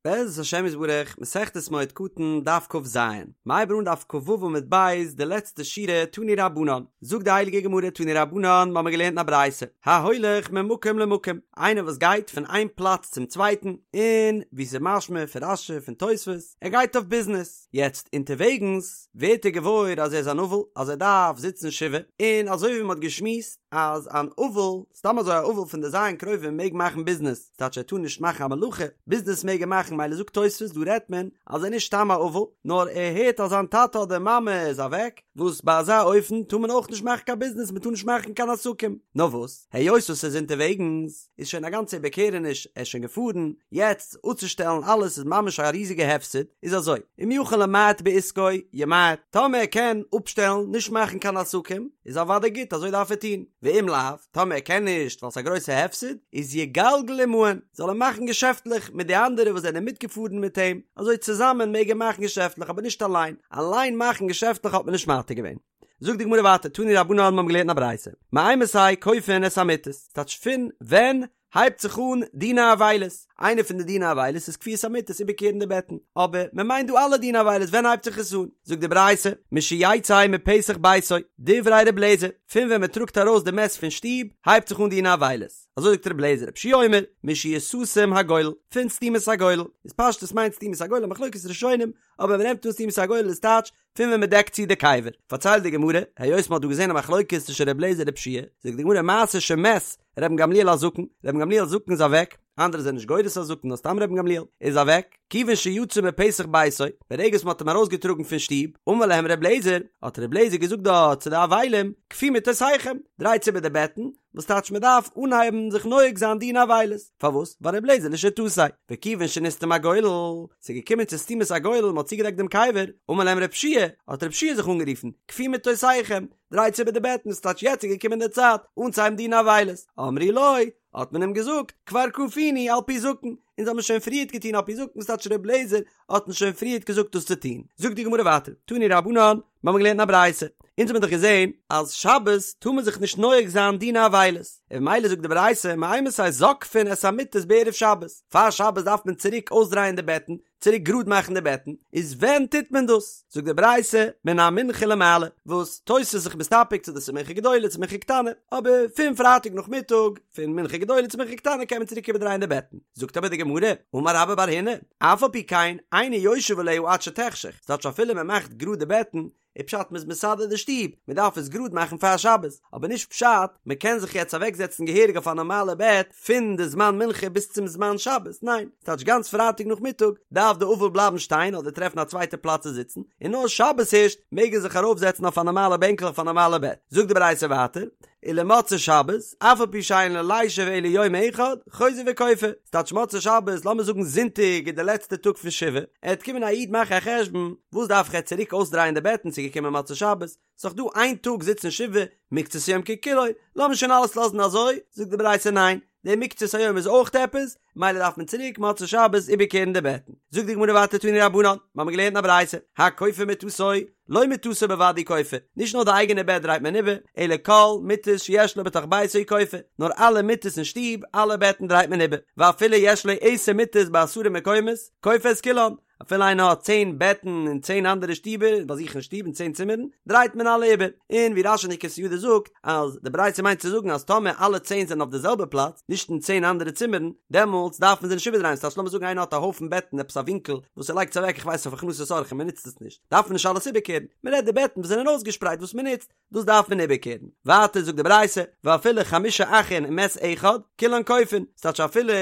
בעזרת השם יתברך, מסכת מועד קטן, דף כ"ז, מ'הייבט אן דף כ"ו עמוד ב', די לעצטע שורה, תנו רבנן, זאגט די הייליגע גמרא תנו רבנן, מ'האמיר געלערנט אין א ברייתא, ההולך ממקום למקום, איינער וואס גייט פון איין פלאץ צום צווייטן, און ווי ס'איז משמע פון רש"י פון תוספות, ער גייט אויף ביזנעס, יעצט אונטערוועגנס ווערט ער געוואויר אז ער איז אן אבל, אז ער דארף זיצן שבעה, און אזוי ווי מ'האט געשמועסט אז אן אבל, סתם אזוי א אבל פון די ז' קרובים מעג מאכן ביזנעס, ס'טייטש ער טאר נישט מאכן א מלאכה, ביזנעס מעג ער מאכן מילא זאגט תוספות דא רעדט מען אז ער איז נישט סתם א אבל, נאר ער הערט אז זיין טאטע אדער מאמע איז אוועק, וואס ביי אזא אופן טאר מען אויך נישט מאכן קיין ביזנעס מען טאר נישט מאכן קיין עסקים, נאר וואס היות וואס ער איז אונטערוועגנס איז שוין א גאנצע איבערקערעניש ער איז שוין געפארן, יעצט אפצושטעלן אלעס איז ממש א ריזיגע הפסד, איז אזוי, אם יכול למעט בעסקו ימעט, טאמער ער קען אפשטעלן נישט מאכן קיין עסקים איז אוודאי גוט אזוי דארף ער טון, ואם לאו, טאמער ער קען נישט ווייל ס'איז א גרויסע הפסד, איז יגלגל עמהן, זאל ער מאכן געשעפטלעך מיט די אנדערע וואס זענען מיטגעפארן מיט אים, אזוי צוזאמען מעג ער מאכן געשעפטלעך אבער נישט אליין, אליין מאכן געשעפטלעך האט מען נישט מתיר געווען. זאגט די גמרא ווייטער, תנו רבנן מיר האבן געלערנט א ברייתא, מאימתי כופין את המיטות, ס'טייטש פון ווען הייבט זיך אן דיני אבילות, איינע פון די דיני אבילות איז כפיית המיטות איבערקערן די בעטן, אבער מען מיינט דא אלע דיני אבילות ווען הייבט זיך עס אן? זאגט די ברייתא, משיצא מפתח ביתו, דברי ר' אליעזר, פון ווען מען טראגט ארויס די מת פון שטוב הייבט זיך אן דיני אבילות, אזוי זאגט ר' אליעזר, רבי יהושע אומר, משיסתם הגולל, פון סתימת הגולל, איז פשטות מיינט סתימת הגולל א מחלוקת ראשונים, אבער מען נעמט אן סתימת הגולל איז טייטש פון ווען מען דעקט צו די קבר. פארציילט די גמרא, היות מען האט דא געזען א מחלוקת צווישן ר' אליעזר און ר' יהושע, זאגט די גמרא מעשה שמת רבן גמליאל הזקן, רבן גמליאל הזקן איז אוועק, אנדערע זענען נישט גורס הזקן נאר סתם רבן גמליאל, איז אוועק, כיוון שיצא מפתח ביתו, ברגע וואס מען האט אים ארויסגעטראגן פון שטוב, אמר להם ר' אליעזר, האט ר' אליעזר געזאגט דארט צו די אבלים, כפו מיטותיכם, דרייטס איבער די בעטן, וואס טייטש מען דארף אנהייבן זיך נוהג זיין דיני אבילות, פארוואס? ווייל ר' אליעזר לשיטתו, וכיוון שנסתם הגולל, ס'איז געקומען צו סתימת הגולל, מ'האט צוגעדעקט דעם קבר, אמר להם ר' יהושע, האט ר' יהושע זיך אנגערופן, כפו מיטותיכם, דרייטס איבער די בעטן, ס'טייטש יעצט איז געקומען די צייט אנצוהייבן דיני אבילות, אמרו לו, האט מען אים געזאגט, כבר כפינו על פי זקן, אונז האבן שוין פריערט געטון על פי זקן, ס'טייטש ר' אליעזר האט אונז שוין פריערט געזאגט דאס צו טון, זאגט די גמרא ווייטער, תנו רבנן, מיר האבן געלערנט אין א ברייתא, אונז האבן דאך געזען אז שבת טאר מען זיך נישט נוהג זיין דיני אבילות, און ממילא זאגט די ברייתא מאימתי זוקפין את המיטות בערב שבת, פאר שבת דארף מען צוריק אויסדרייען די בעטן, צוריק גראד מאכן די בעטן, איז ווען טוט מען דאס? זאגט די ברייתא מן המנחה ולמעלה, וואס תוס' איז זיך מסתפק צו דאס איז מנחה גדולה צו מנחה קטנה, אבער פון פרייטאג נאכמיטאג, פון מנחה גדולה צו מנחה קטנה קען מען צוריק איבערדרייען די בעטן, זאגט אבער די גמרא, אמר רבה בר הונא, אף על פי כן אינו יושב עליה עד שתחשך, ס'טייטש אפילו מען מאכט גראד די בעטן, איז פשט מ'איז מסדר די שטוב, מען דארף עס גראד מאכן פאר שבת, אבער נישט פשט מען קען זיך יעצט אוועק זעצן געהעריג אויף א נארמאלע בעט פון די זמן מנחה ביז צום זמן שבת, ניין, ס'טייטש גאנץ פרייטאג נאכמיטאג דארף די אבל בלייבן שטיין אדער טרעפן א צווייטע פלאץ צו זיצן, און נאר שבת הערשט מעג ער זיך ארויף זעצן אויף א נארמאלע בענקל אויף א נארמאלע בעט, זאגט די ברייתא ווייטער, ולמוצאי שבת, אף על פי שאין לו לישב אלא יום אחד, חוזר וכופה. ס'טייטש מוצאי שבת, לאמיר זאגן זונטאג איז די לעצטע טאג פון שבעה, עט קומען א איד מאכן א חשבון, וואס דארף איך יעצט צוריק אויסדרייען די בעטן ס'איז געקומען מוצאי שבת, ס'איז דאך דא איין טאג זיצן שבעה, מקצת היום ככולו, לאמיר שוין אלעס לאזן אזוי, זאגט די ברייתא ניין, די מקצת היום איז אויך עפעס, מילא דארף מען צוריק מוצאי שבת איבערקערן די בעטן. זאגט די גמרא ווייטער תנו רבנן, מיר האבן געלערנט אין א ברייתא, הכופה מטתו, לא מטתו בלבד הוא כופה, נישט נאר די אייגענע בעט דרייט מען איבער, אלא כל מיטות שיש לו בתוך ביתו הוא כופה, נאר אלע מיטות אין שטוב, אלע בעטן דרייט מען איבער, ואפילו יש לו עשר מיטות בעשרה מקומות, כופה את כולן, אפילו איינער האט צען בעטן אין צען אנדערע שטיבער, ביי זיך אין שטוב אין צען צימערן, דרייט מען אלע איבער. און ווי רש"י אין די כתב יד זאגט, אז די ברייתא מיינט צו זאגן אז טאמער אלע צען זענען אויף די זעלבע פלאץ, נישט אין צען אנדערע צימערן, דעמאלטס דארף מען זיי נישט איבערדרייען, ס'טייטש לאמיר זאגן איינער האט א הויפן בעטן עפעס א ווינקל וואס ער לייגט עס אוועק איך ווייס אויף הכנסת אורחים מען נוצט עס נישט, דארף מען נישט אלעס איבערקערן, מען רעדט די בעטן וואס זענען אויסגעשפרייט וואס מען נוצט, דאס דארף מען איבערקערן. ווייטער זאגט די ברייתא, ואפילו חמשה אחין ומת אחד, כולן כופין, ס'טייטש אפילו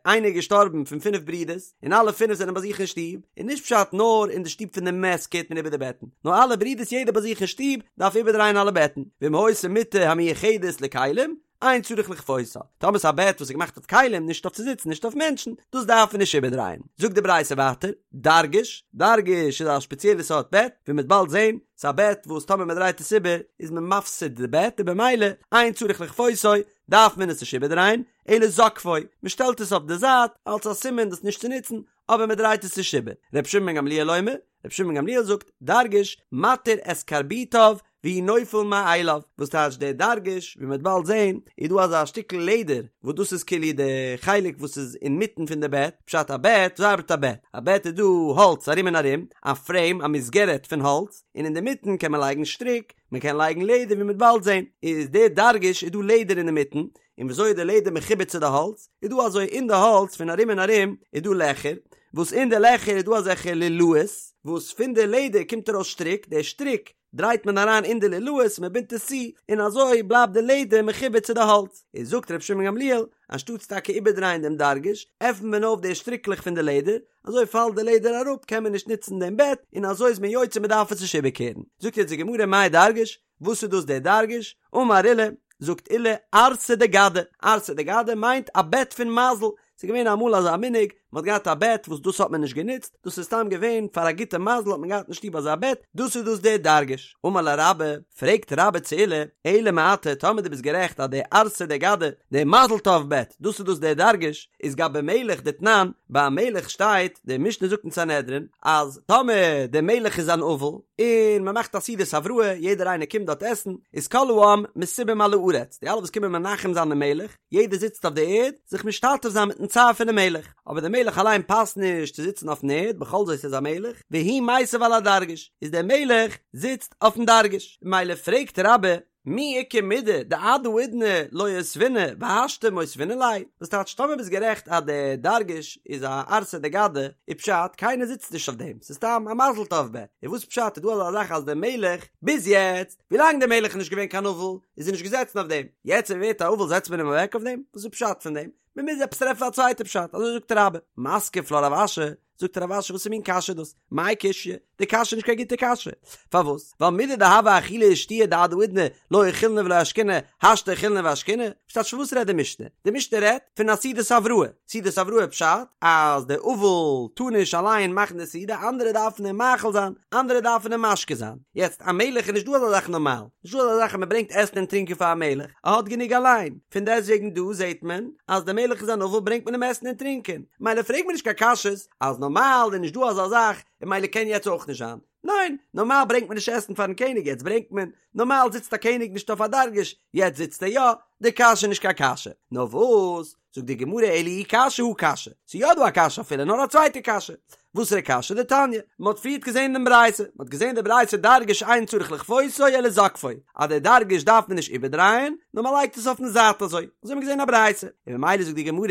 איינער איז געשטארבן פון פינף ברידערס, און אלע פינף זענען ביי זיך אין שטוב, איז נישט פשט נאר אין די שטוב פון די מת קערט מען איבער די בעטן, נאר אלע ברידערס יעדער ביי זיך אין שטוב דארף איבערדרייען אלע בעטן, ואם היתה מיטה המיוחדת לכלים, אין צריך לכפותה, טאמער ס'איז א בעט וואס איז געמאכט אויף כלים, נישט אויף צו זיצן, נישט אויף מענטשן, דאס דארף מען נישט איבערדרייען. זאגט די ברייתא ווייטער, דרגש, דרגש איז א שפעציעלע סארט בעט, ווי מ'וועט באלד זען, ס'איז א בעט וואס טאמער מ'דרייט עס איבער איז מען מפסיד די בעט און במילא אין צריך לכפותו דארף מען עס נישט איבערדרייען, אלא זוקפו, מ'שטעלט עס אויף די זייט אלס א סימן דאס נישט צו נוצן, אבער מ'דרייט עס נישט איבער. ר' שמעון בן גמליאל אומר, ר' שמעון בן גמליאל זאגט, דרגש, מתיר את קרביטיו. והוא נופל מאליו, וואס טייטש דער דרגש, ווי מ'וועט באלד זען, איז דא אזא שטיקל לעדער, וואס דאס איז כאילו די חלק וואס איז אינמיטן פון די בעט, פשט א בעט, וויאזוי ארבעט א בעט? א בעט איז דא האלץ ארום און ארום, א פרעים, א מסגרת פון האלץ, און אינדערמיטן קען מען לייגן שטריק, מען קען לייגן לעדער ווי מ'וועט באלד זען, איז דער דרגש איז דא לעדער אינדערמיטן, און וויאזוי איז די לעדער מחובר צו די האלץ, איז דא אזוי אין די האלץ פון ארום און ארום איז דא לעכער, וואס אין די לעכער איז דא אזעלכע לולאות, וואס פון די לעדער קומט ארויס שטריק, די שטריק דרייט מען אריין אין די לולאות, מען בינדט עס צו, און אזוי בלייבט די לעדער מחובר צו די האלץ. איז זאגט רבי שמעון גמליאל, אנשטאטס טאקע איבערדרייען דעם דרגש, עפנט מען אויף די שטריקלעך פון די לעדער, אזוי פאלט די לעדער אראפ קען מען נישט נוצן דעם בעט, און אזוי איז מען יוצא מען דארף עס נישט איבערקערן. זאגט יעצט די גמרא מאי דרגש, וואס איז דאס דער דרגש? אמר עולא, זאגט עולא, ערסא דגדא, ערסא דגדא מיינט א בעט פון מזל, ס'איז געווען אמאל אזא מנהג, מ'האט געהאט א בעט וואס דאס האט מען נישט גענוצט, דאס איז סתם געווען פאר א גוטע מזל האט מען געהאט אין שטוב אזא בעט, דאס איז דאס דער דרגש. אמר ליה רבה, פרעגט רבה צו עולא, אלא מעתה, טאמער דו ביסט גערעכט אז דער ערסא דגדא, דער מזל טוב בעט, דאס איז דאס דער דרגש, איז גבי מלך דתנן, ביי א מלך שטייט, די משנה זאגט אין סנהדרין, אז טאמער דער מלך איז אן אבל, און מען מאכט א סעודת הבראה, יעדער איינער קומט דארט עסן, איז כל העם מסובים על הארץ, די אלע וואס קומען מנחם זיין דעם מלך, יעדער זיצט אויף די ערד, זיך משתתף זיין מיטן צער פונעם מלך, אבער דער מלך אליין פאסט נישט צו זיצן אויפן ערד, בכל זאת איז א מלך, והוא מיסב על הדרגש, איז דער מלך זיצט אויפן דרגש, ממילא פרעגט רבה, מי איכא מידי דעד האידנא לא אותביניה והשתא מותבינן ליה, וואס טייטש טאמער ביסט גערעכט אז דער דרגש איז א ערסא דגדא, איז פשט קיינער זיצט נישט אויף דעם, ס'איז סתם א מזל טוב בעט, און וואס פשט איז דא אזא זאך אז דער מלך, ביז יעצט, ווילאנג דער מלך איז נישט געווען קיין אבל, איז ער נישט געזעצן אויף דעם, יעצט ער ווערט א אבל זעצט מען אים אוועק אויף דעם? וואס איז פשט פון דעם? מען מוז עפעס טרעפן א צווייטע פשט, אזוי זאגט רבה. מתקיף לה רב אשי, זאגט רב אשי וואס מין קשיא איז דאס? מאי קושיא? די קשיא איז נישט קיין גוטע קשיא. פארוואס? ווייל מידי דהוה אכילה ושתיה דעד האידנא לא אכילנא ולא אשקינא, השתא אכילנא ואשקינא? וואס טייטש פון וואס רעדט די משנה? די משנה רעדט פון א סעודת הבראה. סעודת הבראה פשט אז דער אבל טאר נישט אליין מאכן די סעודה, אנדערע דארפן אים מאכיל זיין, אנדערע דארפן אים משקה זיין. יעצט א מלך איז נישט דא אזא זאך נארמאל, נישט דא אזא זאך אז מען ברענגט עסן און טרינקען פאר א מלך, ער האט גענוג אליין, פון דעסטוועגן דא זעט מען אז דער מלך איז אן אבל ברענגט מען אים עסן און טרינקען, מילא פרעג מיר נישט קיין קשיות אז נארמאל איז נישט דא אזא זאך און מילא קען יעצט אויך נישט זיין, ניין, נארמאל ברענגט מען נישט עסן פארן קעניג יעצט ברענגט מען, נארמאל זיצט א קעניג נישט אויף א דרגש יעצט זיצט ער יא, די קשיא איז נישט קיין קשיא, נאר וואס? זאגט די גמרא אלא אי קשיא הא קשיא, ס'איז יא דא א קשיא אפילו נאר א צווייטע קשיא, וואסערע קשיא? דתניא, מען האט פריערט געזען דעם ברייתא, מען האט געזען די ברייתא דרגש אין צריך לכפותו אלא זוקפו, אז די דרגש דארף מען נישט איבערדרייען, נאר מען לייגט עס אויפן זייט אזוי, אזוי האט מען געזען א ברייתא, און ממילא זאגט די גמרא,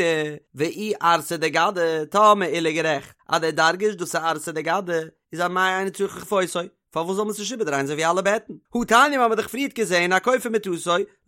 ואי ערסא דגדא, טאמער עולא איז גערעכט אז די דרגש דאס איז ערסא דגדא, איז אמאי אינו צריך לכפותו, פארוואס זאל מען עס נישט איבערדרייען אזוי ווי אלע בעטן? הא תניא מ'האמיר דאך פריערט געזען הכופה מטתו,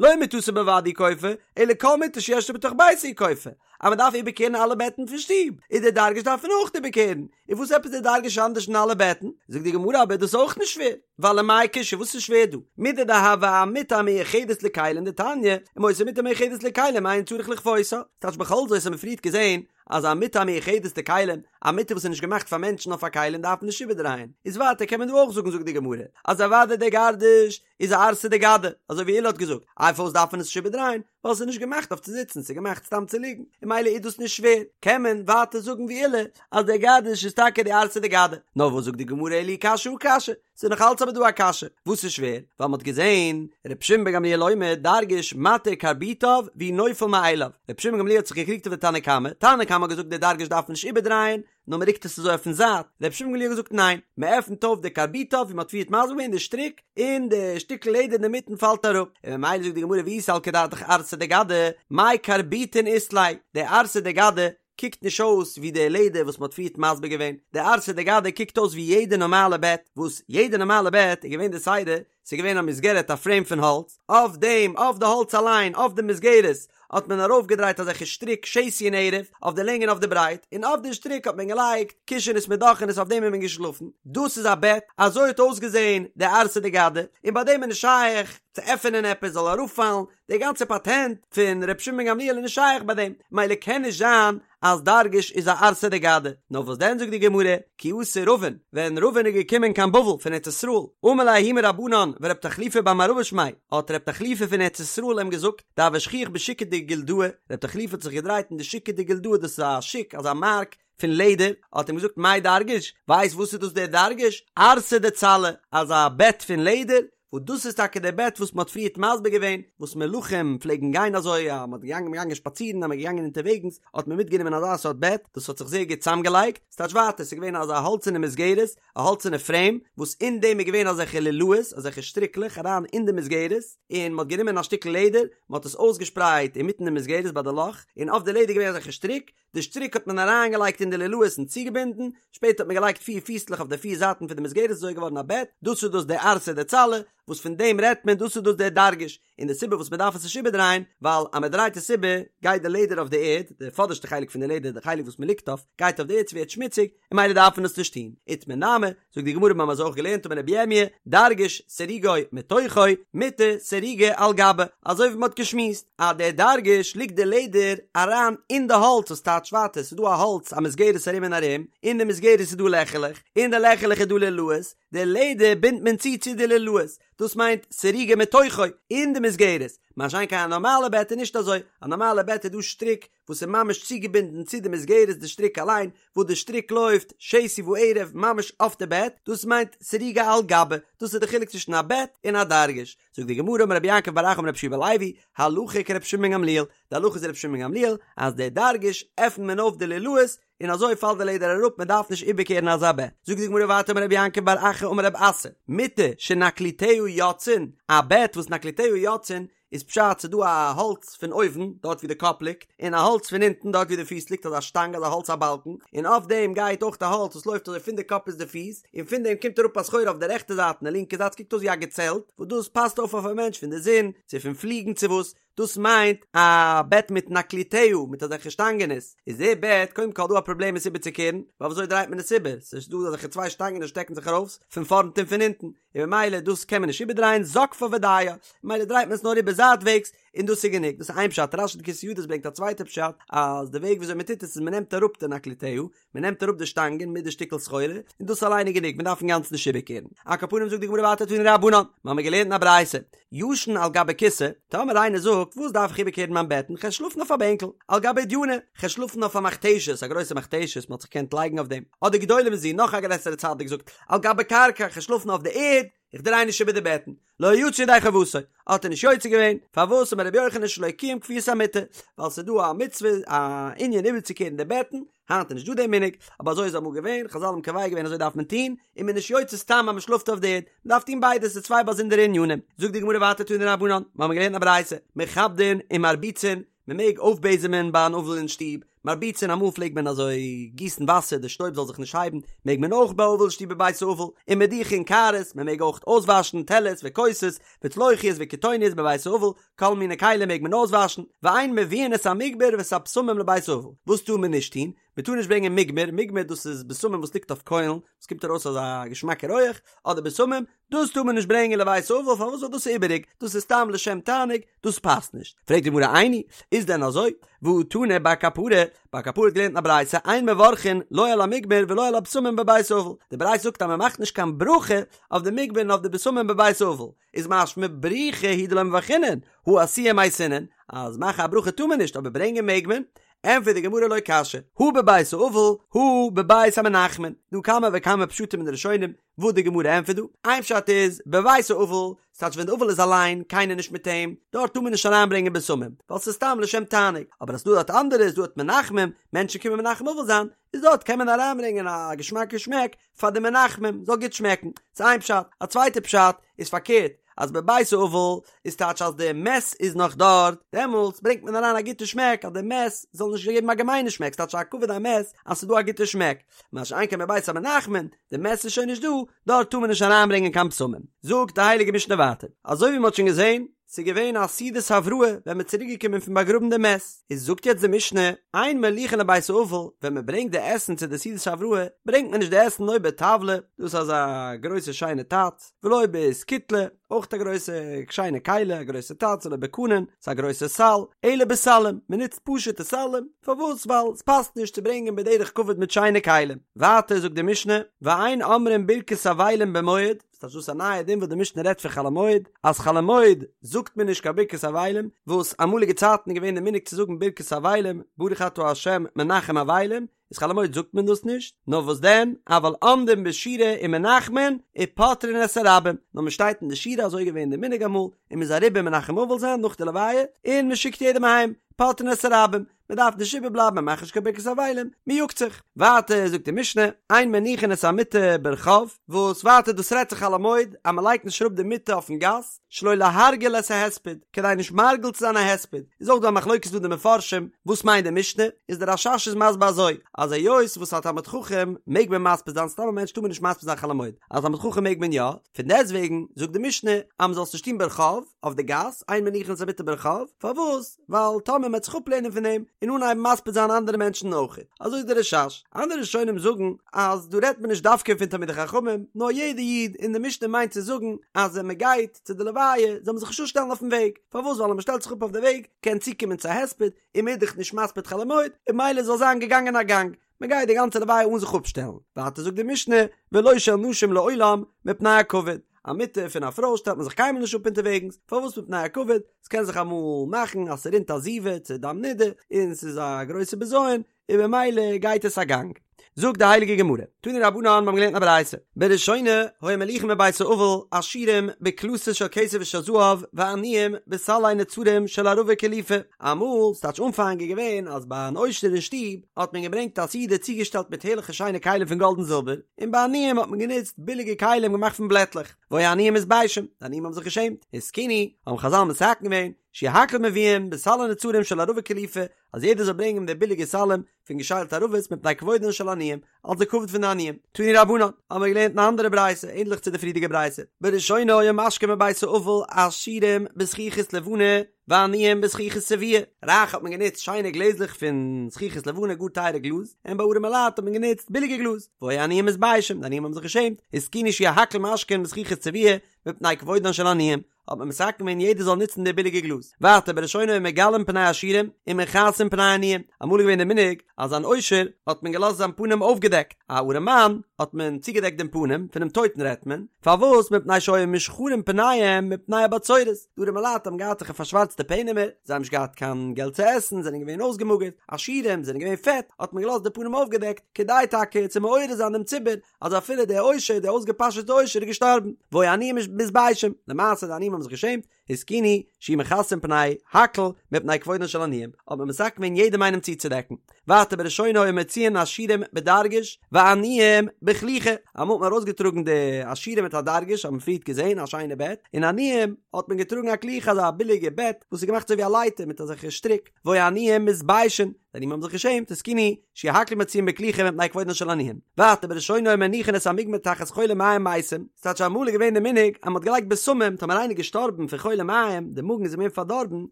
לא מטתו בלבד הוא כופה, אלא כל מטה שיש לו בתוך ביתו הוא כופה, אז מען דארף איבערקערן אלע בעטן פון שטוב, איז די דרגש דארף מען אויך איבערקערן, און וואס עפעס די דרגש אנדערש פון אלע בעטן? זאגט די גמרא אבער דאס איז אויך נישט שווער, ווייל ומאי קושיא וואס איז שווער דא? מידי דהוה אמטה המיוחדת לכלים דתניא, אם היתה מטה מיוחדת לכלים אין צריך לכפותה, ס'טייטש בכל זאת האט מען פריערט געזען אז א מטה המיוחדת לכלים, א מטה וואס איז נישט געמאכט פאר מענטשן נאר פאר כלים דארף מען נישט איבערדרייען, איז ווייטער קען מען דא אויך זאגן זאגט די גמרא אז אוודאי דער גרדש איז א ערסא דגדא, אזוי ווי עולא האט געזאגט, איי פארוואס דארף מען עס נישט איבערדרייען, ווייל עס איז נישט געמאכט אויף צו זיצן, ס'איז געמאכט סתם צו ליגן, און ממילא איז דאס נישט שווער, קען מען ווייטער זאגן ווי עולא אז דער גרדש איז טאקע די ערסא דגדא, נאר וואס זאגט די גמרא אלא אי קשיא הא קשיא, ס'איז נאך אלץ אבער דא א קשיא, וואס איז שווער? ווייל מ'האט געזען ר' שמעון בן גמליאל אומר דרגש מתיר קרביטיו והוא נופל מאליו, ר' שמעון בן גמליאל האט זיך געקריגט אויף די תנא קמא, תנא קמא האט געזאגט די דרגש דארף מען נישט איבערדרייען, נאר מ'רוקט עס אזוי אויפן זייט, ר' שמעון בן גמליאל האט געזאגט ניין, מ'עפנט אויף די קרביטיו ווי מ'האט פריערט מסביר געווען די שטריק, און די שטיקל לעדער אינדערמיטן פאלט אראפ, און ממילא זאגט די גמרא ואי סלקא דעתך ערסא דגדא, מאי קרביטין אית ליה, די ערסא דגדא קוקט נישט אויס ווי די לעדער וואס מ'האט פריערט מסביר געווען, די ערסא דגדא קוקט אויס ווי יעדע נארמאלע בעט, וואס יעדע נארמאלע בעט איז געווען די סדר, ס'איז געווען א מסגרת א פרעים פון האלץ, אויף דעם, אויף די האלץ אליין, אויף די מסגרת, האט מען ארויפגעדרייט אזעלכע שטריק שתי און ערב, אויף די לענג און אויף די ברייט, און אויף די שטריק האט מען געלייגט קישענעס מיט דאכענעס אויף דעם איז מען געשלאפן, דאס איז א בעט, אזוי האט אויסגעזען די ערסא דגדא, און ביי דעם איז נישט שייך צו עפענען עפעס זאל אראפפאלן, די גאנצע פאטענט פון ר' שמעון בן גמליאל איז נישט שייך ביי דעם, מילא קען נישט זיין אז דרגש איז א ערסא דגדא, נאר וואס דען זאגט די גמרא, כי אתא רבין, ווען רבין איז געקומען קיין בבל פון ארץ ישראל, אמר ליה ההוא מרבנן ורב תחליפא בר מערבא שמיה, האט רב תחליפא פון ארץ ישראל אים געזאגט, דהוה שכיח בשוקא דגילדאי, רב תחליפא האט זיך געדרייט אין די שוקא דגילדאי דאס איז א שוק אזא מארק פון לעדער, האט אים געזאגט מאי דרגש, ווייסט וואס איז דאס דער דרגש? ערסא דצלא, אזא בעט פון לעדער, וואס דאס איז טאקע די בעט וואס מען האט פריערט מסביר געווען, וואס מלכים פלעגן גיין אזוי, אז מען האט געגאנגען געגאנגען שפאצירן, אז מען איז געגאנגען אונטערוועגנס, האט מען מיטגענומען אזא סארט בעט, דאס האט זיך זייער גוט צוזאמגעלייגט, ס'טייטש ווייטער, ס'איז געווען אזא האלצערנע מסגרת, א האלצערנע פרעים, וואס אין דעם איז געווען אזעלכע לולאות, אזעלכע שטריקלעך אריין אין די מסגרת, און מען האט גענומען א שטיקל לעדער, מען האט עס אויסגעשפרייט אינמיטן די מסגרת ביי די לאך, און אויף די לעדער איז געווען אזעלכע שטריק, די שטריק האט מען אריינגעלייגט אין די לולאות און צוגעבינדן, שפעטער האט מען געלייגט פיר פיסלעך אויף די פיר זייטן פון די מסגרת איז אזוי געווארן א בעט, דאס איז דאס די ערסא דצלא, וואס פון דעם רעדט מען, דאס איז דאס דער דרגש, און די סיבה וואס מען דארף עס נישט איבערדרייען, ווייל אז מען דרייט עס איבער, גייט די לעדער אויף די ערד, די פאדערשטע חלק פון די לעדער, די חלק וואס מען ליגט אויף, גייט אויף די ערד, ס'ווערט שמוציג, און ממילא דארף מען עס נישט טון. איתמר נמי, זאגט די גמרא מיר האבן אזוי אויך געלערנט אמר רבי ירמי', דרגש סירוגו מתוכו, מטה סירוגה על גבה, אזוי ווי מען האט געשמועסט, אז דער דרגש ליגט די לעדער אריין אין די האלץ וואס טייטש ווייטער, ס'איז דא א האלץ א מסגרת ארום און ארום, אין די מסגרת איז דא לעכעלעך, אין די לעכעלעך איז דא לולאות, די לעדער בינדט מען צו צו די לולאות, דאס מיינט סירוגה מתוכו, אין די מסגרת, מה שאין כן א נארמאלע בעט איז נישט אזוי, א נארמאלע בעט איז דא שטריק וואס איז ממש צוגעבינדן צו די מסגרת די שטריק אליין, וואס די שטריק לויפט שתי וערב ממש אויף די בעט, דאס מיינט סירוגה על גבה, דאס איז די חילוק צווישן א בעט און א דרגש. זאגט די גמרא אמר רבי יעקב בר אחא אמר רבי יהושע בן לוי, הלכה כרבי שמעון בן גמליאל, די הלכה איז רבי שמעון בן גמליאל, אז די דרגש עפנט מען אויף די לולאות, און אזוי פאלט די לעדער אראפ מען דארף נישט איבערקערן אזא בעט. זאגט די גמרא ווייטער אמר רבי יעקב בר אחא אמר רב אסי, מטה שנקליטיה יוצאין, א בעט וואס נקליטיה יוצאין, איז פשט ס'איז דא א האלץ פון אויבן דארט ווי די קאפ ליגט, און א האלץ פון אונטן דארט ווי די פיס ליגט אזא שטאנג אזא האלץ א באלקן, און אויף דעם גייט אויך א האלץ וואס לויפט אזוי פון די קאפ ביז די פיס, און פון דעם קומט אראפ א סחורה אויף די רעכטע זייט און די לינקע זייט ס'קוקט אויס ווי א געצעלט, וואס דאס פאסט אויף אויף א מענטש פון די זון, צו פון פליגן צו וואס, דאס מיינט א בעט מיט נקליטיה, מיט אזעלכע שטאנגענעס, איז די בעט קודם כל דא א פראבלעם עס איבערצוקערן, ווייל וויאזוי דרייט מען עס איבער, ס'איז דא אזעלכע צוויי שטאנגען וואס שטעקן זיך ארויס פון פארנט און פון אונטן, און ממילא דאס קען מען נישט איבערדרייען זוקפה ודיה, ממילא דרייט מען עס נאר איבער זייטוועגס, און דאס איז גענוג, דאס איז איין פשט, רש"י די כתב ידות ברענגט א צווייטע פשט, אז די וועג וויאזוי מען טוט עס איז מען נעמט אראפ די נקליטיה, מען נעמט אראפ די שטאנגען מיט די שטיקל סחורה, און דאס אליין איז גענוג, מען דארף אינגאנצן נישט איבערקערן. על כל פנים זאגט די גמרא ווייטער תנו רבנן, מיר האבן געלערנט אין א ברייתא, ישן על גבי כסא, טאמער איינער זאגט, וואס דארף איך איבערקערן מיין בעטן, כ'על שלאפן אויף א בענקל, על גבי אודייני, כ'על שלאפן אויף א מכתשת, א גרויסע מכתשת, מען האט זיך געקענט לייגן אויף דעם, אדער גדולה מזו, נאך א גרעסערע צדיק זאגט, על גבי קרקע, כ'על שלאפן אויף די ערד, איך דריי נישט איבער די בעטן, לא יצא ידי חובתו, האט ער נישט יוצא געווען, פארוואס אמר רבי יוחנן שלא קיים כפיית המיטה, ווייל ס'איז דא א מצוה א ענין איבערצוקערן די בעטן, היינט איז נישט דא די מנהג, אבער אזוי איז אמאל געווען, חזל האבן קובע געווען אזוי דארף מען טון, און מ'איז נישט יוצא סתם אז מ'שלאפט אויף די ערד, מ'דארף טון ביידע, ס'איז צוויי באזונדערע ענינים. זאגט די גמרא ווייטער תנו רבנן, מיר האבן געלערנט א ברייתא, מכבדין ומרביצין, מען מעג אויפבעזעמען ביי אן אבל אין שטוב, מרביצין אמאל פלעגט מען אזוי גיסן וואסער די שטויב זאל זיך נישט הייבן, מעג מען אויך ביי אבל אין שטוב בבית האבל, ומדיחין קערות, מען מעג אויך אויסוואשן טעלערס וכוסות, וצלוחיות וקיתוניות בבית האבל, כל מיני כלים מעג מען אויסוואשן, ואין מביאין את המוגמר ואת הבשמים לבית האבל, וואס טאר מען נישט טון? מען טאר נישט ברענגען מוגמר, מוגמר דאס איז בשמים וואס ליגט אויף קוילן, עס קומט ארויס אזא געשמאקע רויעך, אדער בשמים, דאס טאר מען נישט ברענגען לבית האבל, פארוואס ווייל דאס איז איבעריג, דאס איז סתם לשם תענוג, דאס פאסט נישט. פרעגט די גמרא איני, איז דען אזוי? והא תנא בר קפרא, בר קפרא האט געלערנט אין א ברייתא, אין מברכין לא על המוגמר ולא על הבשמים בבית האבל, די ברייתא זאגט אז מען מאכט נישט קיין ברכה אויף די מוגמר און אויף די בשמים בבית האבל, איז משמע בריכי הוא דלא מברכינן, הא אתויי מייתינן, אז מאכן א ברכה טאר מען נישט אבער ברענגען מעג מען, ענטפערט די גמרא לא קשיא, הא בבית האבל, הא בבית המנחמין, דא כמה וכמה פשטים אין די ראשונים וואס די גמרא ענטפערט דא, איין פשט איז, בבית האבל, ס'טייטש ווען די אבל איז אליין, קיינער נישט מיט אים, דארט טאר מען נישט אריינברענגען בשמים, ווייל ס'איז סתם לשם תענוג, אבער אז ס'דא דארט אנדערע, איז דא דארט מנחמים, מענטשן קומען מנחם אבל זיין, איז דארט קען מען אריינברענגען א געשמאקע שמעק פאר די מנחמים, זאל גוט שמעקן, ס'איז איין פשט, א צווייטע פשט איז פארקערט, אז בבית האבל איז טייטש אז די מת איז נאך דארט, דעמאלטס ברענגט מען אריין א גוטע שמעק אז די מת זאל נישט געבן א געמיינע שמעק, ס'טייטש א כבוד המת אז ס'איז דא א גוטע שמעק, מה שאין כן בבית המנחמים, די מת איז שוין נישט דא, דארט טאר מען נישט אריינברענגען קיין בשמים. זאגט די הייליגע משנה ווייטער, אזוי ווי מ'האט שוין געזען, ס'איז געווען א סעודת הבראה ווען מ'איז צוריק געקומען פון באגראבן די מת, איז זאגט יעצט די משנה, אין מוליכין לבית האבל, ווען מ'ברענגט די עסן צו די סעודת הבראה, ברענגט מען נישט די עסן לא בטבלא, דאס איז אזא גרויסע שיינע טאץ, ולא באסקוטלא, אויך א גרויסע שיינע כלי, א גרויסע טאץ, ולא בקנון, ס'איז א גרויסע סל, אלא בסלים, מ'נוצט פשוט'ע סלים, פארוואס? ווייל ס'פאסט נישט צו ברענגען בדרך כבוד מיט שיינע כלים. ווייטער זאגט די משנה, ואין אומרים ברכת אבלים במועד, ס'טייטש דאס א נייע דין וואס די משנה רעדט פון חול המועד, אז חול המועד זאגט מען נישט קיין ברכת אבלים, וואס אמאליגע צייטן איז געווען די מנהג צו זאגן ברכת אבלים, ברוך אתה ה' מנחם אבלים, איז חול המועד זאגט מען דאס נישט, נאר וואס דען, אבל עומדין בשורה ומנחמין ופוטרין את הרבים, נאר מען שטייט אין די שורה אזוי איז געווען די מנהג אמאל, און מען איז אריבער מנחם אבל זיין נאך די לוויה, און מען שיקט יעדעם אהיים, פוטרין את הרבים, מען דארף נישט איבערבלייבן מען מאכט נישט קיין ברכת אבלים, מען יאגט זיך. ווייטער זאגט די משנה, אין מניחין את המיטה ברחוב, וואס ווייטער דאס רעדט זיך חול המועד אז מען לייגט נישט אראפ די מיטה אויפן גאס, שלא להרגיל את ההספד, כדי נישט מרגיל צו זיין א הספד, איז אויך דא א מחלוקת דא די מפרשים, וואס מיינט די משנה, איז דער רש"ש איז מסביר אזוי, אז היות וואס א תלמיד חכם מעג מען מספיד זיין, סתם א מענטש טאר מען נישט מספיד זיין חול המועד, א תלמיד חכם מעג מען יא, פון דעסטוועגן זאגט די משנה אז מען זאל עס נישט טון ברחוב, אויף די גאס, אין מניחין את המיטה ברחוב, פארוואס? ווייל טאמער מען וועט זיך אפלערנען פון דעם און אנהייבן מספיד זיין אנדערע מענטשן אויך, אזוי איז דער רש"ש. אנדערע ראשונים זאגן אז דא רעדט מען נישט דווקא פון תלמידי חכמים, נאר יעדע איד, און די משנה מיינט צו זאגן אז ווען מען גייט צו די לוויה זאל מען זיך נישט אפשטעלן אויפן וועג, פארוואס ווייל אז מען שטעלט זיך אפ אויף די וועג קען צוקומען צו א הספד, און מען איז דאך נישט מספיד חול המועד, און ממילא זאל זיין געגאנגען א גאנג, מען גייט די גאנצע לוויה אן זיך אפשטעלן, ווייטער זאגט די משנה, ולא של נשים לעולם, מפני הכבוד, א מיטה פון א פרוי שטעלט מען זיך קיינמאל נישט אפ אונטערוועגנס, פארוואס מפני הכבוד, ס'קען זיך אמאל מאכן אז ס'רינט א זיבה צו דם נידה, און ס'איז א גרויסע בזיון, און במילא גייט עס א גאנג. זאגט די הייליגע גמרא, תנו רבנן, מיר האבן געלערנט א ברייתא, בראשונה היו מוליכין מבית האבל עשירים בקלתות של כסף ושל זהב ועניים בסלי נצרים של ערבה קלופה, אמאל, ס'טייטש אנפאנג איז געווען אז ביי אן עושר אין שטוב האט מען געברענגט א סעודה צוגעשטעלט מיט הערליכע שיינע כלים פון גאלד און זילבער, און ביי עניים האט מען גענוצט ביליגע כלים געמאכט פון בלעטלעך, והיו העניים מתביישים, די עניים האבן זיך געשעמט, התקינו, האבן חזל מתקן געווען, שיהו הכל מביאין בסלי נצרים של ערבה קלופה, אז יעדער זאל ברענגען די ביליגע סלים פון געשיילטע ערבות מפני כבודן של עניים, אלס די כבוד פון די עניים. תנו רבנן, האבן מיר געלערנט אין א אנדערע ברייתא, ענדליך צו די פריערדיגע ברייתא, בראשונה היו משקין בבית האבל עשירים בזכוכית לבנה ועניים בזכוכית צבועה, רייך האט מען גענוצט שיינע גלעזלעך פון זכוכית לבנה גאר טייערע גלאז, און ביי ארעמע לייט האט מען גענוצט ביליגע גלאז, והיו העניים מתביישים, די עניים האבן זיך געשעמט, התקינו שיהו הכל משקין בזכוכית צבועה מפני כבודן של עניים, האט מען מתקן געווען יעדער זאל נוצן די ביליגע גלאז. ווייטער בראשונה היו מגלין פני עשירים ומכסין פני עניים, אמאל איז געווען די מנהג אז אן עושר האט מען געלאזט זיין פנים אויפגעדעקט, א ארעמאן האט מען צוגעדעקט דעם פנים, פונעם טויטן רעדט מען, פארוואס מפני שהיו מושחרין פניהם מפני הבצורת, די ארעמע לייט האבן געהאט זיך פארשווארצטע פענעמער, זיי האבן נישט געהאט קיין געלט צו עסן, זענען געווען אויסגעמאגערט, עשירים זענען געווען פעט, האט מען געלאזט די פנים אויפגעדעקט, כדי טאקע צו מעורר זיין דעם ציבור אז אפילו דער עושר, דער אויסגעפאשעטע עושר איז געשטארבן, והיו העניים מתביישים, למעשה די עניים האבן זיך געשעמט, התקינו, שיהו מכסין פני הכל מפני כבודן של עניים, האט מען מתקן געווען יעדעם איינעם צוצודעקן. ווייטער בראשונה היו מוציאין עשירים בדרגש ועניים בכליכה, אמאל האט מען ארויסגעטראגן די עשירים מיט א דרגש, האט מען פריערט געזען א שיינע בעט, און עניים האט מען געטראגן א כליכה אזא ביליגע בעט וואס איז געמאכט אזוי ווי א לייטער מיט אזעלכע שטריק, והיו העניים מתביישין, די עניים האבן זיך געשעמט, התקינו, שיהו הכל מוציאין בכליכה מפני כבודן של עניים. ווייטער בראשונה היו מניחין את המוגמר תחת חולי מעיים מתים, ס'טייטש אמאל איז געווען די מנהג אז מ'האט געלייגט בשמים טאמער איינער איז געשטארבן פון חולי מעיים, די מאגן איז אים געווען פארדארבן,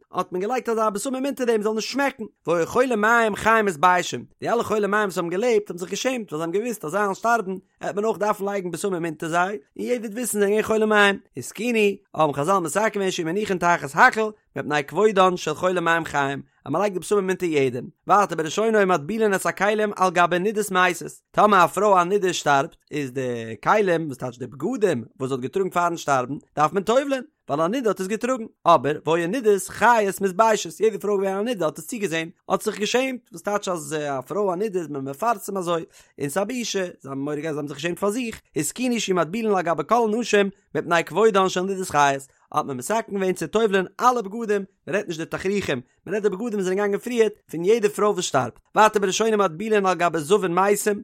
האט מען געלייגט אזא בשמים אונטער דעם זאל נישט שמעקן, והיו חולי מעיים חיים מתביישים, די אלע חולי מעיים וואס האבן געלעבט האבן זיך געשעמט ווייל זיי האבן געוואוסט אז זיי וועלן שטארבן העט מען אויך דארפן לייגן בשמים אונטער זיי, און יעדער וועט וויסן זיי זענען געווען חולי מעיים. התקינו, האבן חזל מתקן געווען שיהו מניחין תחת הכל, מפני כבודן של חולי מעיים חיים, אז מען לייגט די בשמים אונטער יעדעם. ווייטער בראשונה היו מטבילין את הכלים על גבי נידות מתות, טאמער א פרוי א נידה שטארבט, איז די כלים, וואס טייטש די בגדים, וואס זי האט געטראגן פארן שטארבן, דארף מען טובל'ען, ווייל א נידה האט עס געטראגן. אבער, והיו נידות חיות מתביישות, יעדע פרוי געווען א נידה האט עס צוגעזען, האט זיך געשעמט, וואס טייטש אז א פרוי א נידה איז מען מפרסם אזוי, און ס'איז א בושה, זיי האבן מורא געהאט זיי האבן זיך געשעמט פאר זיך, התקינו שיהו מטבילין על גבי כל הנשים, מפני כבודן של נידות חיות, האט מען מתקן געווען צו טובל'ען אלע בגדים, מען רעדט נישט די תכריכים, מען רעדט די בגדים וואס זענען געגאנגען פריערט, פון יעדע פרוי וואס שטארבט. ווייטער בראשונה מטבילין על גבי זבין מתים,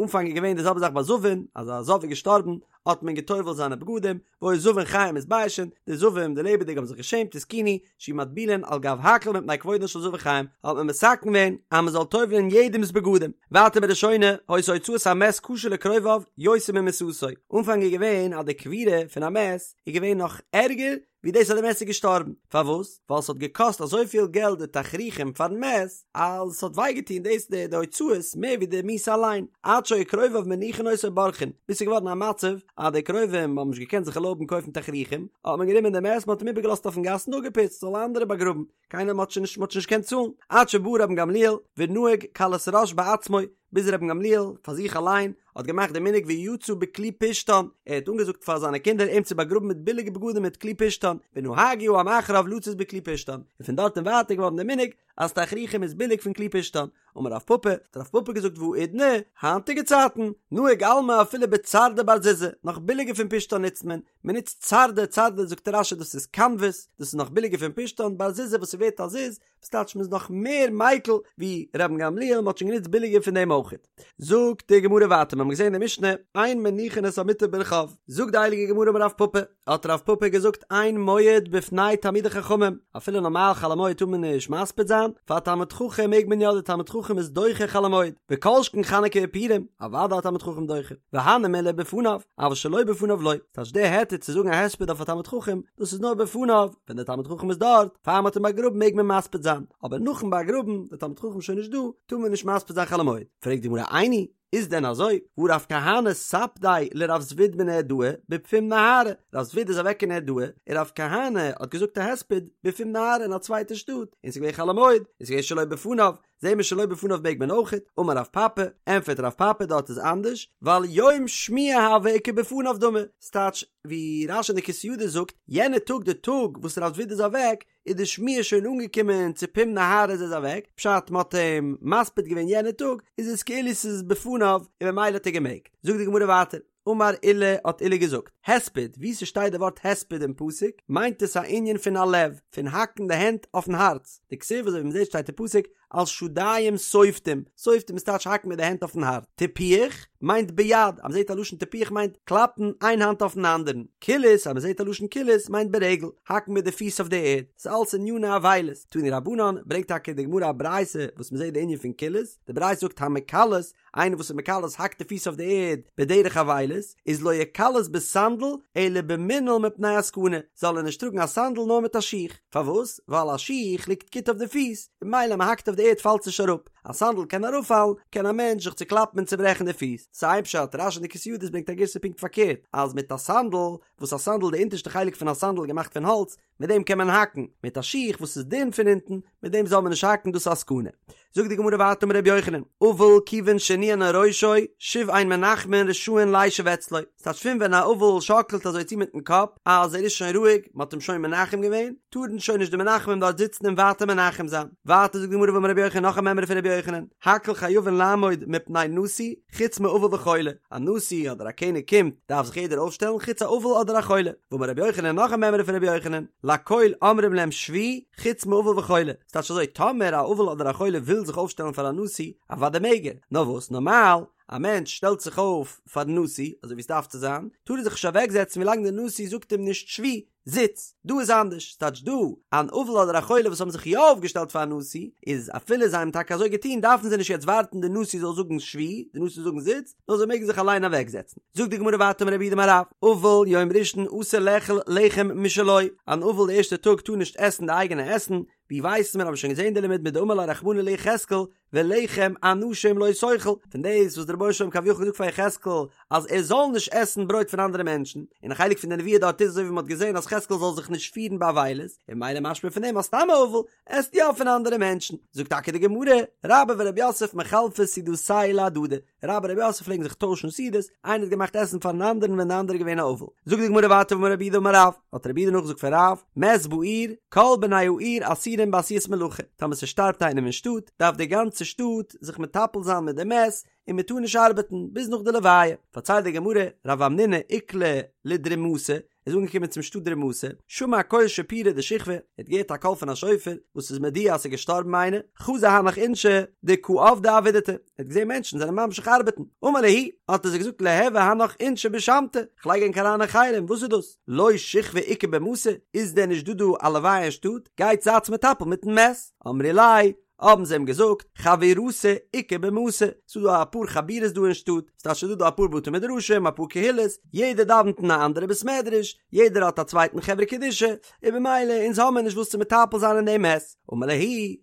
אנפאנג איז געווען די זעלבע זאך ביי זבין, אז א זב איז געשטארבן, האט מען געטובל'ט זיינע בגדים, והיו זבין חיים מתביישין, די זבים, די לעבעדיגע האבן זיך געשעמט, התקינו, שיהו מטבילין על גב הכל מפני כבודן של זבין חיים, האט מען מתקן געווען אז מען זאל טובל'ען יעדעמ'ס בגדים. ווייטער בראשונה, היתה הוצאת המת קשה לקרוביו יותר ממיתתו, אנפאנג איז געווען אז די קבורה פון א מת איז געווען נאך ערגער ווי דאס אז די מת איז געשטארבן, פארוואס? ווייל ס'האט געקאסט אזויפיל געלט די תכריכים פארן מת, אז ס'האט וויי געטון דאס די די הוצאות מער ווי די מיתה אליין, עד שהיו קרוביו מניחין אותו ובורחין, ביז ס'איז געווארן א מצב אז די קרובים האבן נישט געקענט זיך ערלויבן קויפן תכריכים, האט מען גענומען די מת מ'האט אים איבערגעלאזט אויפן גאס און אפגעפוצט זאלן אנדערע באגראבן, קיינער מ'האט שוין נישט מ'האט שוין נישט געקענט צאלן, עד שבא רבן גמליאל ונהג קלות ראש בעצמו, ביז רבן גמליאל פאר זיך אליין האט געמאכט די מנהג ויצא בכלי פשתן, ער האט אנגעזאגט פאר זיינע קינדער אים צו באגראבן מיט ביליגע בגדים מיט כלי פשתן, ונהגו העם אחריו לצאת בכלי פשתן, און פון דארט און ווייטער געווארן די מנהג. אז תכריכים איז ביליג פון כלי פשתן. אמר רב פפא, האט רב פפא געזאגט והאידנא, היינטיגע צייטן, נהוג עלמא אפילו בצרדא בר זוזא, נאך ביליגער פון פשתן נוצט מען, מען נוצט צרדא, צרדא זאגט רש"י דאס איז קאנוועס, דאס איז נאך ביליגער פון פשתן, בר זוזא וואס ס'ווערט א זוז, וואס טייטש מ'איז נאך מער מיקל ווי רבן גמליאל, מ'האט שוין גענוצט ביליגער פון דעם אויכעט. זאגט די גמרא ווייטער, מ'האמיר געזען אין די משנה, אין מניחין את המיטה ברחוב, זאגט די הייליגע גמרא אמר רב פפא, האט רב פפא געזאגט אין מועד בפני תלמידי חכמים, אפילו נארמאל חול המועד טאר מען נישט מספיד זיין, פאר א תלמיד חכם מעג מען יא, די תלמיד חכם איז דוחה חול המועד, וכל שכן חנוכה ופורים, אוודאי א תלמיד חכם דוחה, והני מילי בפניו, אבל שלא בפניו לא, ס'טייטש די היתר צו זאגן א הספד אויף א תלמיד חכם, דאס איז נאר בפניו, ווען דער תלמיד חכם איז דארט, פאר מ'האט אים באגראבן מעג מען מספיד זיין, אבער נאכן באגראבן, דער תלמיד חכם שוין נישט דא, טאר מען נישט מספיד זיין חול המועד. פרעגט די גמרא איני, איז דען אזוי? והא רב כהנא ספדיה לרב זביד מנהרדעא בפום נהרא, רב זביד איז אוועק אין נהרדעא, און רב כהנא האט געזאגט א הספד בפום נהרא אין א צווייטע שטאט, און ס'איז געווען חול המועד, און ס'איז געווען שלא בפניו, זעהן מיר שלא בפניו מעג מען אויכעט, אמר רב פפא, ענפערט רב פפא דארט איז אנדערש, ווייל יום שמועה הוה וכבפניו דמי, ס'טייטש ווי רש"י אין די כתבי ידות זאגט, יענע טאג די טאג וואס רב זביד איז אוועק, איז די שמועה שוין אנגעקומען צו פום נהרא אז ער איז אוועק, פשט מ'האט אים מספיד געווען יענע טאג, איז עס כאילו ס'איז בפניו און ממילא האט ער געמעגט. זאגט די גמרא ווייטער, אמר עולא האט עולא געזאגט, הספד, וואו ס'שטייט די ווארט הספד אין פסוק, מיינט עס א ענין פון הלב, פון האקן די הענט אויפן הארץ, דכתיב אזוי ווי מ'זעט שטייט אין פסוק, על שדיים שופטים, שופטים איז טייטש האקן מיט די הענט אויפן הארץ, טיפוח מיינט ביד, אז מ'זעט א לשון טיפוח מיינט קלאפן איין האנט אויפן אנדערן, קילוס אז מ'זעט א לשון קילוס מיינט ברגל, האקן מיט די פיס אויף די ערד, ס'איז אלס עניני אבילות, תנו רבנן, ברענגט טאקע די גמרא א ברייתא וואס מ'זעט די ענין פון קילוס, די ברייתא זאגט המקלס, איינער וואס איז מקלס האקט די פיס אויף די ערד בדרך אבילות, איז לא יקלס בסנדל אלא במנעל מפני הסכנה, זאל ער נישט טראגן א סנדל נאר מיט א שיך, פארוואס? ווייל א שיך ליגט גוט אויף די פיס, און ממילא מען האקט אויף די ערד פאלט עס נישט אראפ, א סנדל קען אראפפאלן, קען א מענטש זיך צוקלאפן און צוברעכן די פיס, ס'איז איין פשט, רש"י אין די כתבי ידות ברענגט א גירסא פונקט פארקערט, אז מיט א סנדל, וואס א סנדל די אונטערשטע חלק פון א סנדל איז געמאכט פון האלץ, מיט דעם קען מען האקן, מיט א שיך וואס איז דין פון אונטן, מיט דעם זאל מען נישט האקן דאס איז א סכנה. זאגט די גמרא ווייטער אמר רבי יוחנן, אבל כיוון שהניענע ראשו, שוב אין מנחמין רשאין לישב אצלו, ס'טייטש פון ווען א אבל שאקלט אזוי צו מיטן קאפ אז ער איז שוין רואיג, מ'האט אים שוין מנחם געווען, טארן שוין נישט די מנחמים דארט זיצן און ווייטער מנחם זיין. ווייטער זאגט די גמרא ואמר רבי יוחנן נאך א מימרא פון רבי יוחנן, הכל חייבין לעמוד מפני נשיא, חוץ מאבל וחולה, א נשיא אדער א קעניג קומט דארף זיך יעדער אויפשטעלן חוץ א אבל אדער א חולה, ואמר רבי יוחנן נאך א מימרא פון רבי יוחנן, לכל אומרים להם שבו חוץ מאבל וחולה, ס'טייטש אזוי טאמער א אבל אדער א חולה וויל זיך אויפשטעלן פאר א נשיא, אוודאי מעג ער, נאר וואס נארמאל א מענטש שטעלט זיך אויף פארן נשיא אזוי ווי ס'דארף צו זיין, טאר ער זיך נישט אוועקזעצן ווילאנג דער נשיא זאגט אים נישט שבו, זיץ, דא איז אנדערש, ס'טייטש דא, אן אבל אדער א חולה וואס האבן זיך יא אויפגעשטעלט פארן נשיא, איז אפילו זיי האבן טאקע אזוי געטון דארפן זיי נישט יעצט ווארטן די נשיא זאל זאגן שבו, די נשיא זאל זאגן זיץ, נאר זיי מעגן זיך אליין אוועקזעצן. זאגט די גמרא ווייטער אמר רב יהודה אמר רב, אבל יום ראשון אסור לאכול לחם משלו, אן אבל די ערשטע טאג טאר נישט עסן די אייגענע עסן, ווי ווייסן מיר האבן שוין געזען די לימוד מדאמר ליה רחמנא ליחזקאל, ולחם אנשים לא תאכל, פון דאס וואס דער רבונו של עולם כביכול געזאגט פאר יחזקאל אז ער זאל נישט עסן ברויט פון אנדערע מענטשן, און א חלק פון די נבואה דארט איז אזוי ווי מען האט געזען אז יחזקאל זאל זיך נישט פירן באבילות, און ממילא משמע פון דעם אז סתם א אבל עסט יא פון אנדערע מענטשן, זאגט טאקע די גמרא, רבה ורב יוסף מחלפי סעודתייהו להדדי, רבה און רב יוסף פלעגן זיך טוישן סעודות, איינער האט געמאכט עסן פארן אנדערן ווען די אנדערע איז געווען א אבל. זאגט די גמרא ווייטער ואמר רב יהודה אמר רב, האט רב יהודה נאכגעזאגט פון רב, מת בעיר, כל בני העיר אסורים בעשיית מלאכה, טאמער ס'שטארבט איינעם אין שטאט, דארף די גאנצע שטאט זיך מטפל זיין מיט די מת, און מ'טאר נישט ארבעטן ביז נאך די לוויה. פארציילט די גמרא, רב המנונא איקלע לדרימתא, איז אנגעקומען צום שטאט דרימתא, שמע קול שיפורא דשכבא, ער האט געהערט א קול פון א שופר, וואס איז מודיע אז ס'איז געשטארבן איינער, חזא הנך אינשי דקא עבדי עבידתא, ער האט געזען מענטשן זענען ממשיך ארבעטן, אמר להו, האט ער זיי געזאגט ליהוו הנך אינשי בשמתא, כ'לייג ענק אריין אין חרם, וואס איז דאס? לא שכבא איכא במתא, איז דען נישט דא דא א לוויה אין שטאט, גייטס זייטס מטפל מיטן מת, אמרי ליה, האבן זיי אים געזאגט, חבורתא איכא במתא, ס'איז דא אפאר חבורות דא אין שטאט, ס'טייטש ס'איז דא דא אפאר בתי מדרשים, אפאר קהילות, יעדער דאווענט אין א אנדערע בית מדרש, יעדער האט א צווייטן חברה קדישא, און במילא אונז האמיר נישט וואס צו מטפל זיין אין דעם מת. אמר להו,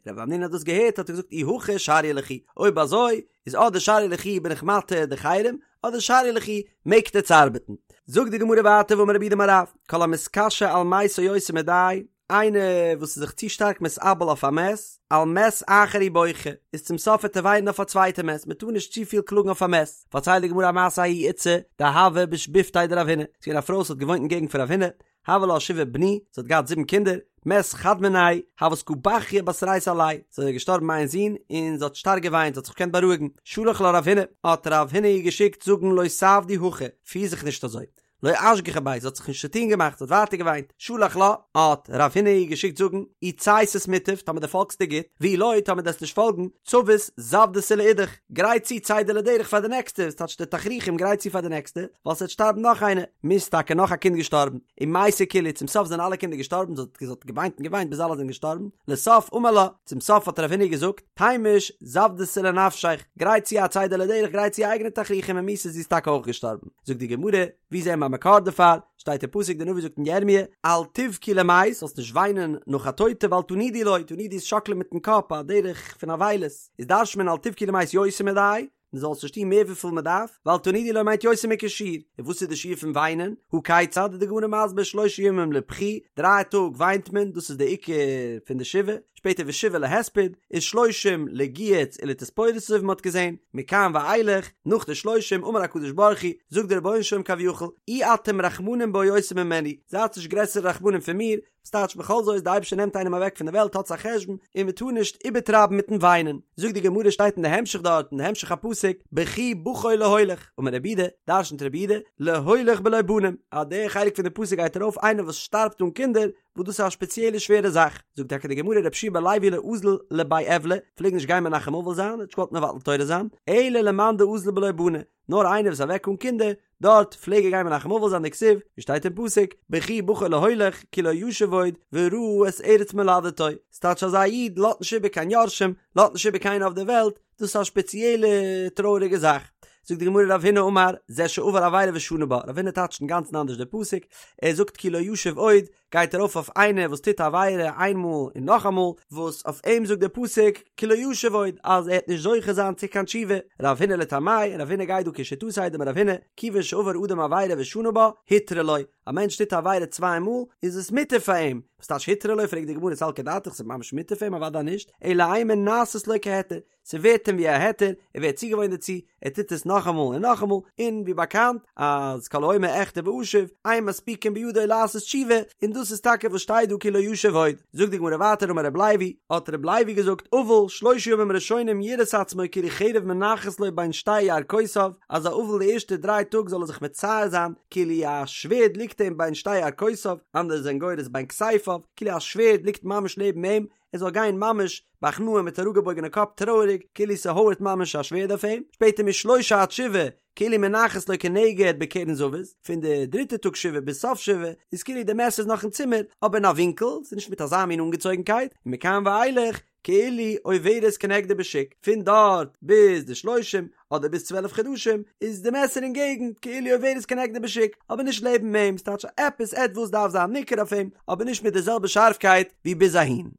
רב המנונא האט דאס געהערט האט ער געזאגט אי הכי שריא לכו, אויב אזוי איז אדער שריא לכו בין איך מתיר די חרם, אדער שריא לכו מעגט עטס ארבעטן. זאגט די גמרא ווייטער ואמר רב יהודה אמר רב, כל המתקשה על מתו יותר מדאי, איינער וואס איז זיך צו שטארק מתאבל אויף א מת, על מת אחר הוא בוכה, איז צום סוף וועט ער וויינען אויף א צווייטע מת, מען טאר נישט צופיל קלאגן אויף א מת. פארציילט די גמרא א מעשה ההיא איתתא דהוה בשיבבותיה דרב הונא, ס'איז געווען א פרוי וואס האט געוואוינט אין געגנט פון רב הונא, הוה לה שבעה בני, זי האט געהאט זיבן קינדער, מת חד מינייהו, הות קא בכיא בתרייתא עליה, ס'איז איר געשטארבן איין זון, און זי האט שטארק געוויינט, זי האט זיך נישט געקענט בארואיגן, שלח לה רב הונא, האט רב הונא איר געשיקט זאגן לא תעבדי הכי, פיר זיך נישט אזוי, לא אשגחה ביה, זי האט זיך נישט צוטון געמאכט, זי האט ווייטער געוויינט, שלח לה, האט רב הונא איר געשיקט זאגן, אי צייתת מוטב, טאמער דו פאלגסט איז גוט, ואי לא, טאמער דו וועסט נישט פאלגן, צבית זוודתא לאידך, גרייט צו צידה לדרך פאר די נעקסטע, ס'טייטש די תכריכים גרייט צו פאר די נעקסטע, ווייל ס'וועט שטארבן נאך איינער, מית טאקע נאך א קינד געשטארבן, ומתו כולהו, צום סוף זענען אלע קינדער געשטארבן, זי האט געוויינט און געוויינט ביז אלע זענען געשטארבן, לסוף אמר לה, צום סוף האט רב הונא געזאגט, תימוש זוודתא לנפשיך, גרייט צו א צידה לדרך, גרייט צו אייגענע תכריכים ומתא זי איז טאקע אויך געשטארבן. זאגט די גמרא, ווי זעהן מיר א מקור דערפאר? שטייט אין פסוק די נביא זאגט אין ירמיה, אל תבכו למת, זאלסט נישט וויינען נאך א טויטע ואל תנודו לו, תנודו איז שאקלען מיטן קאפ א דרך פון אבילות, איז דרש'נט מען אל תבכו למת יותר מדאי, מען זאל עס נישט טון מער וויפיל מען דארף, ואל תנודו לו מיינט יותר מכשיעור, און וואס איז די שיעור פון וויינען? הא כיצד איז די גמרא מסביר שלושה ימים לבכי, דריי טאג וויינט מען, דאס איז די עיקר פון די שבעה, שפעטער ושבעה להספד, ושלושים לגיהוץ ולתספורת אזוי ווי מען האט געזען, מכאן ואילך, נאך די שלושים אמר הקדוש ברוך הוא, זאגט דער רבונו של עולם כביכול, אי אתם רחמנים בו יותר ממני, זייטס נישט גרעסערע רחמנים פון מיר, ס'טייטש בכל זאת די אייבערשטער נעמט איינעם אוועק פון די וועלט האטס א חשבון און מען טאר נישט איבערטרייבן מיטן וויינען, זאגט די גמרא שטייט אין די המשך דארט אין די המשך הפסוק בכי בכו להולך, אמר רב יהודה, דרשנ'ט רב יהודה, להולך בלא בנים, אז די חלק פון די פסוק גייט ארויף איינער וואס שטארבט אן קינדער, וואס דאס איז א שפעציעלע שווערע זאך, זאגט טאקע די גמרא רבי יהושע בן לוי לא אזיל לבי אבלא, פלעג נישט גיין מנחם אבל זיין, האט נישט געוואלט מבטל תורה זיין, אלא למאן דאזיל בלא בני, נאר איינער וואס איז אוועק אן קינדער, דארט פלעג ער גיין מנחם אבל זיין דכתיב, ווי שטייט אין פסוק, בכי בכו להולך, כי לא ישוב עוד, וראה את ארץ מולדתו, ס'טייטש אז א איד לאזט נישט איבער קיין יורשים, לאזט נישט איבער קיינער אויף דער וועלט, דאס איז א שפעציעלע טרויעריגע זאך. זאגט די גמרא רב הונא אמר, זה שעבר עבירה ושנה בה, רב הונא טייטשט אינגאנצן אנדערש די פסוק, ער זאגט כי לא ישוב עוד, גייט ארויף אויף איינער וואס טוט א עבירה איינמאל און נאכאמאל, וואס אויף אים זאגט דער פסוק כי לא ישוב עוד אז ער וועט נישט זוכה זיין צו קיין תשובה, רב הונא לטעמיה, רב הונא גייט דא כשיטתו דאמר רב הונא, כיוון שעבר אדם עבירה ושנה בה, הותרה לו, א מענטש טוט א עבירה צוויי מאל, איז עס מותר פאר אים, וואס טייטש הותרה לו, פרעגט די גמרא סלקא דעתך ס'איז ממש מותר פאר אים אוודאי נישט, אלא אימא נעשית לו כהיתר, ס'ווערט אים ווי א היתר, ער ווערט צוגעוואוינט דערצו, ער טוט עס נאכאמאל און נאכאמאל, און ווי באקאנט אז כל האומר אחטא ואשוב, אין מספיקין בידו לעשות תשובה, און דאס איז טאקע וואס שטייט דא כי לא ישוב עוד. זאגט די גמרא ווייטער אמר רב לוי, האט רב לוי געזאגט, אבל שלושה ימים ראשונים יראה את עצמו כאילו חרב מונחת לו בין שתי ירכותיו, אז א אבל די ערשטע דריי טאג זאל ער זיך מצייר זיין כאילו א שווערד ליגט אים בין שתי ירכותיו, אנדערע זענען גורס בין כתפיו, כאילו א שווערד ליגט ממש נעבן אים, ער זאל גיין ממש בהכנעה מיט אראפגעבויגענע קאפ טרויעריג כאילו ס'הויערט ממש א שווערד אויף אים, שפעטער משלושה עד שבעה כאילו מונחת לו כנגד בקרן זווית, פון די דריטע טאג שבעה ביז סוף שבעה איז כאילו די מעסער איז נאך אין צימער אבער אין א ווינקל, ס'איז נישט מיט אזא מין אנגעצויגנקייט, ומכאן ואילך כאילו עוברת כנגדו בשוק, פון דארט ביז די שלושים אדער ביז 12 חדשים איז די מעסער אין געגנט כאילו עוברת כנגדו בשוק אבער נישט לעבן אים, ס'טייטש עפעס עטוואס דארף זיין ניכר אויף אים אבער נישט מיט די זעלבע שארפקייט ווי ביז אהין.